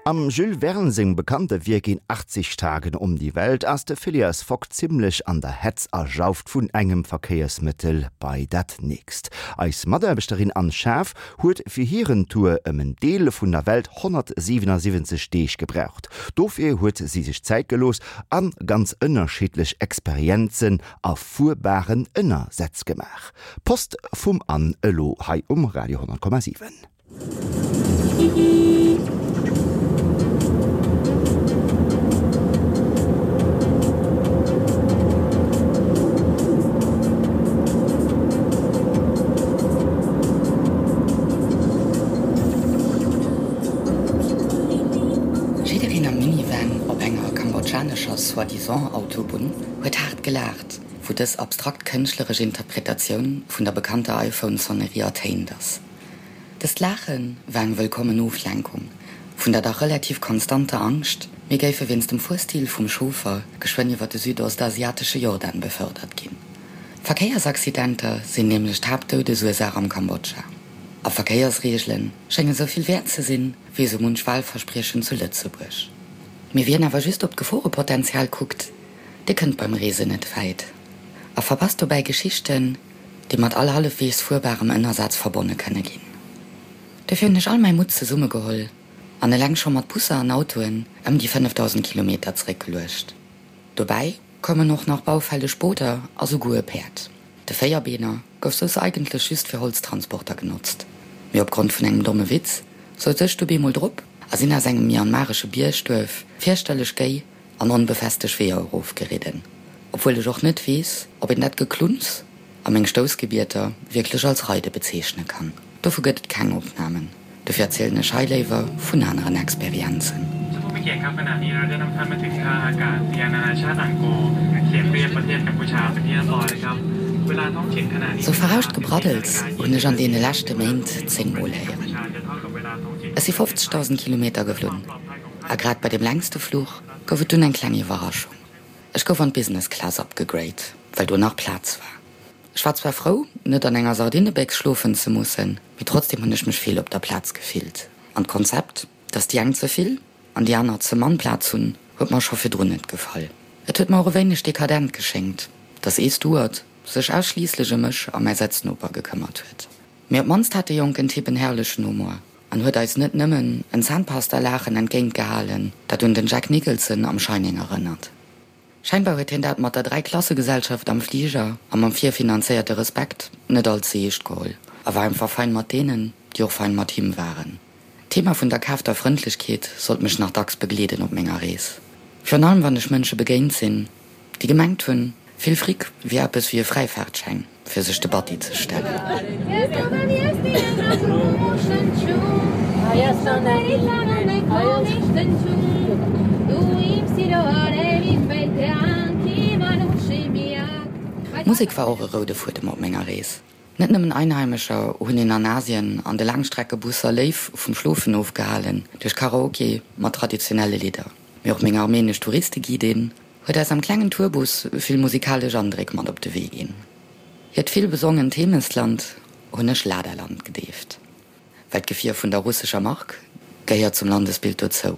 Am Jules Verne sengem bekannte Wierk In 80 Tagen um die Welt ass de Phileas Fogg zimmlech an der Hetz a jauft vun engem Verkéiersmëttel bei dat nächst. Eis Mataarbechterin Anne Schaaf huet fir hiren Tour ëm en Deel vun der Welt 177 Deeg gebraucht. Dofir huet si sech Zäit gelooss a ganz ënnerschiddlech Experienzen a fuerbaren Ënnersätz gemaach. Post vum Anne elo hei um Radio 10,7. Jiddereen am Minivan op enger kambodschanescher soi-disant Autobunn huet haart gelaacht, wou dës abstrakt kënschtleresch Interpretatioun vun der bekannter iPhone-Sonnerie ertéint ass. Dëst Laache war eng wëllkommen Oflenkung vun der dach relativ konstanter Angscht, mir géife wéinst dem Fuerstil vum Chauffer geschwënn iwwer de südostasiatesche Jordan befördert ginn. Verkéiersaccidenter sinn nämlech d'Haaptdoudesursaach am Kambodscha. A Verkéiersreegele schénge sou vill wäert ze sinn, wéi sou munch Walverspriechen zu Lëtzebuerg. Mee wien awer just op d'Geforepotenzial kuckt, dee kënnt beim Reesen net wäit a verpasst dobäi Geschichten, déi mat all hallefweegs fuerbarem Ënnersaz verbonne kënne ginn. Dofir hunn ech all mäi Mutt zesummegeholl an eleng scho mat Busser an Autoen ëm déi 5.000 Kilometer zeréckgeluecht. Dobäi koumen och nach baufälleg Booter a souguer e Päerd. De Véierbeener gouf soss eigentlech just fir Holztransporter genotzt, mee opgrond vun engem domme Witz souz ech du bemol drop a sinn aus engem myanmaresche Biergduerf fierchterlech géi an onbefesteg Weeër erofgeridden, obwuel ech och net weess, ob een dat Geklunz a meng Stoussgebieter wierklech als Reide bezeechne kann. Dovu gëtt et keng Opnamen, dofir erzielen ech hei léiwer vun aneren Experienzen. Sou verrauscht Gebraddels hunn ech an deene leschte Méint 10 mol héieren. Ech si 50.000 Kilometer geflunn. A grad bei deem längste Fluch gouf et dunn eng kleng Iwwerraschung, Ech gouf an d'Business Class upgegrade, well do nach Plaz war. Ech war zwar frou, net an enger Sardinebéchs schlofen ze mussen, mee trotzdem hunn ech mech fehl op der Plaz gefillt. An d'Konzept, dass déi eng ze vill an déi aner ze mann Plaz hunn, huet mer scho virdrun net gefall. Et huet mer och e wéineg dekadent geschéngt, dass ee Steward sech ausschliisslech ëm mech a mäi Sëtznoper gekëmmert huet. Mee op d'mannst hat de jonken Typ en herrlechen Humor an huet eis net nëmmen en Zahnpasta-Laachen entgéint gehalen, dat un den Jack Nicholson am Shining erënnert. Scheinbar huet hien dat mat der Dräiklassegesellschaft am Fliger a mam virfinanzéierte Respekt net all ze eescht geholl a war einfach fein mat deenen, déi och fein mat him waren. D'Thema vun der kaafter Frëndlechkeet sollt mech nach dacks begleeden op menger Rees. Virun allem wann ech Mënsche begéint sinn, déi gemengt hunn, vill Fric wier eppes wéi e Fräifaartschäin fir sech de Batti ze stellen. Musek war och e roude Fuedem op menger Rees. Net nëmmen Einheimescher hunn een an Asien an de Laangstreckebusser léif vum Schlofen ofgehalen duerch Karaoke mat traditionelle Lidder, mee och meng armenesch Touristeguidin huet eis am klengen Tourbus vill musikalesch Andréck mat op de Wee ginn. Hiert vill besongent Heemechtsland hunn ech Ladaland gedeeft, well d'Gefier vun der russescher Mark gehéiert zum Landesbild dozou.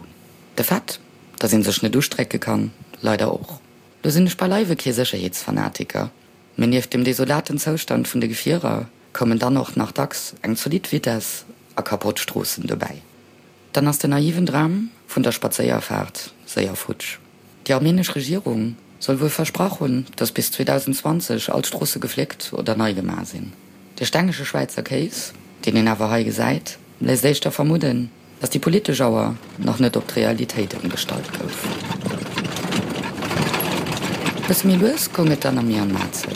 De Fait, dass een sech net ustrécke kann, leider och. Lo sinn ech beileiwe kee Sécherheetsfanatiker, mee nieft dem desolaten Zoustand vun de Gefierer koumen dann och nach dacks eng zolidd Vitess a kapott Stroossen dobäi. Dann ass den naiven Dram vun der Spadséierfaart séier futsch. Déi armenesch Regierung soll wuel versprach hunn, datt bis 2020 all d'Stroosse gefléckt oder nei gemaach sinn. De stengege Schwäizer Kéis, deen een awer hei gesäit, léisst éischter vermudden, datt déi politesch Auer nach net op d'Realitéit ëmgestallt gouf. Bësse méi lues goung et dann am Myanmar zou.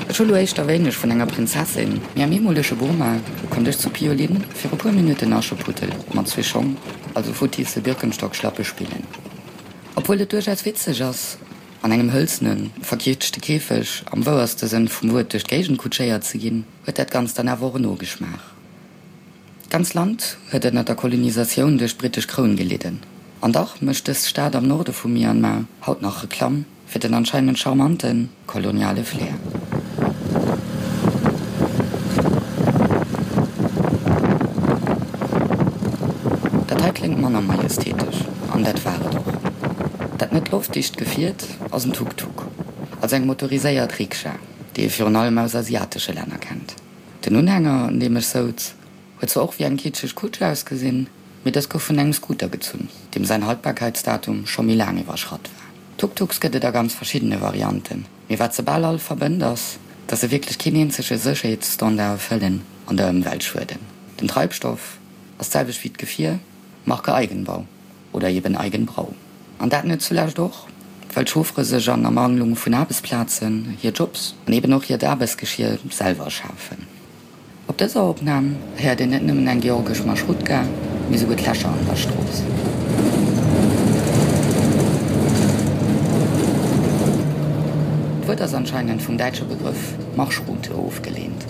Ech hu lo éischter wéineg vun enger Prinzessin, mee am eemolege Burma konnt ech zu Piolin fir e puer Minutten Ascheputtel mat zwee Schong, also futtisse Birkenstock-Schlappe spillen. Obwuel et duerchaus witzeg ass, an engem hëlzene, verkietschte Käfeg am wouerste Sënn vum Wuert duerch d'Géigend kutschéiert ze ginn, huet dat Ganzt dann awer och en Nogeschmaach. D'ganz Land huet ënner der Kolonisatioun duerch d'brittesch Kroun gelidden. An dach mécht dës Stad am Norde vu Myanmar haut nach Reklamm fir den anscheinend charmante koloniale Flair. Dat hei kléngt manner majestätesch, an dat war et och. Dat net loftdicht Gefiert ass en Tuk-Tuk, also eng motoriséiert Rikscha, déi ee virun allem aus asiatesche Länner kennt. Den Unhänger, an deem ech souz, huet zwar och wéi eng kitscheg Kutsch ausgesinn, mee dës gouf vun engem Scooter gezunn, deem säin Haltbarkeitsdatum scho méi laang iwwerschratt war. Tuk-Tuks gëtt et a ganz verschiddene Varianten, mee wat se bal all verbënnt ass, dass se wierklech keen eenzege Sécherheetsstandard erfëllen an der Ëmwelt schueden. Den Treibstoff ass d'selwecht wéi d'Gefier, Marke Eigenbau oder eben Eigenbrau. An dat net zulescht och, well d'Chauffere sech an Ermangelung vun Aarbechtsplazen hir Jobs an eben och hiert Aarbechtsgeschier selwer schafen. Op dëser Opnam héiert een net nëmmen eng georgesch Marschrutka, mee souguer d'Lächer an der Strooss. D'Wuert ass anscheinend vum däitsche Begrëff Marschroute ofgeleent.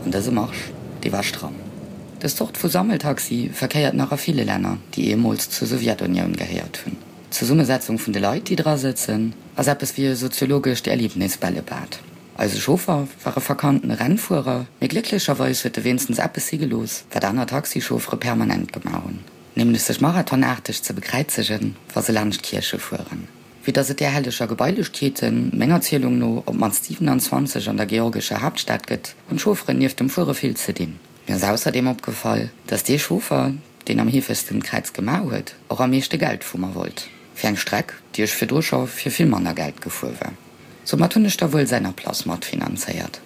An dëse Marsch, dee war stramm. Dës Zort vu Sammeltaxi verkéiert nach a ville Länner, déi eemools zur Sowjetunioun gehéiert hunn. D'Zesummesetzung vun de Leit, déi dra sëtzen, ass eppes wéi e soziologescht Erlebnisbällebad. Eise Chauffer war e verkannten Rennfuerer, mee glécklecherweis huet e wéinstens eppes si gelooss, wat aner Taxichauffere permanent gemaach hunn, nämlech sech marathonaarteg ze bekräizegen, wa se laanscht Kierche fueren. Vue dass et där helleger Gebailechkeeten, menger Zielung no, op d'mannst 27 an der georgescher Haaptstad gëtt, hunn d'Chaufferen nieft dem Fuere vill ze dinn. Mir ass ausserdeem opgefall, dass dee Chauffer, deen am heefegsten d'Kräiz gemaach huet, och am meeschte Geld vu mer wollt, fir eng Streck, déi ech virdru scho fir vill manner Geld gefuer war. Soumat hunn ech da wuel säin Ablass matfinanzéiert.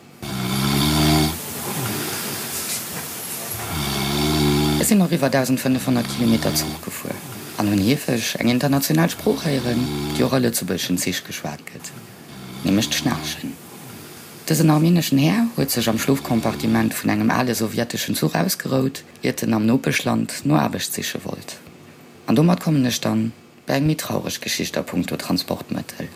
Ech sinn och iwwer 1.500 Kilometer Zuch gefuer an hunn heefeg eng international Sprooch héieren, déi och a lëtzebuergeschen Zich geschwat gëtt, nämlech d'Schnaarchen. Dësen armeneschen Här huet sech am Schlofcompartiment vun engem ale sowjeteschen Zuch ausgerout, iert en am Nopeschland no Aarbecht siche wollt. An domat kommen ech dann bei eng méi traureg Geschicht a punkto Transportmëttel.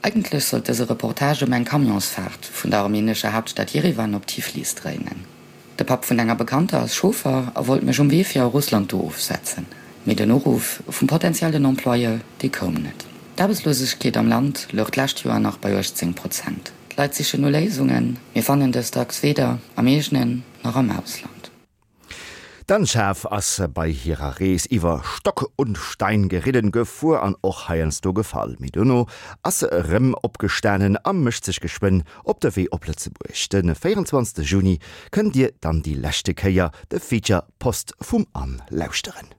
Eigentlech sollt dëse Reportage ëm eng Camionsfaart vun der armenescher Haaptstad Jerewan op Tiflis dréinen. De Papp vun enger Bekannter ass Chauffer a wollt mech um Wee fir a Russland do ofsetzen, mee den Uruff vum potentiellen Employeur, dee koum net. D'Aarbechtslosegkeet am Land louch d'lescht Joer nach bei 18 Prozent. D'Leit sichen no Léisungen, mee fannen dës dacks weder am eegenen nach am Ausland. D'Anne-Schaaf ass bei hirer Rees iwwer Stock und Stein geridden, gefuer an och heiansdo gefall. Mee dono ass se erëm opgestanen a mécht sech geschwënn op de Wee op Lëtzebuerg. De 24 Juni kënnt dir dann déi leschte Kéier de Feature Post vum Anne lauschteren.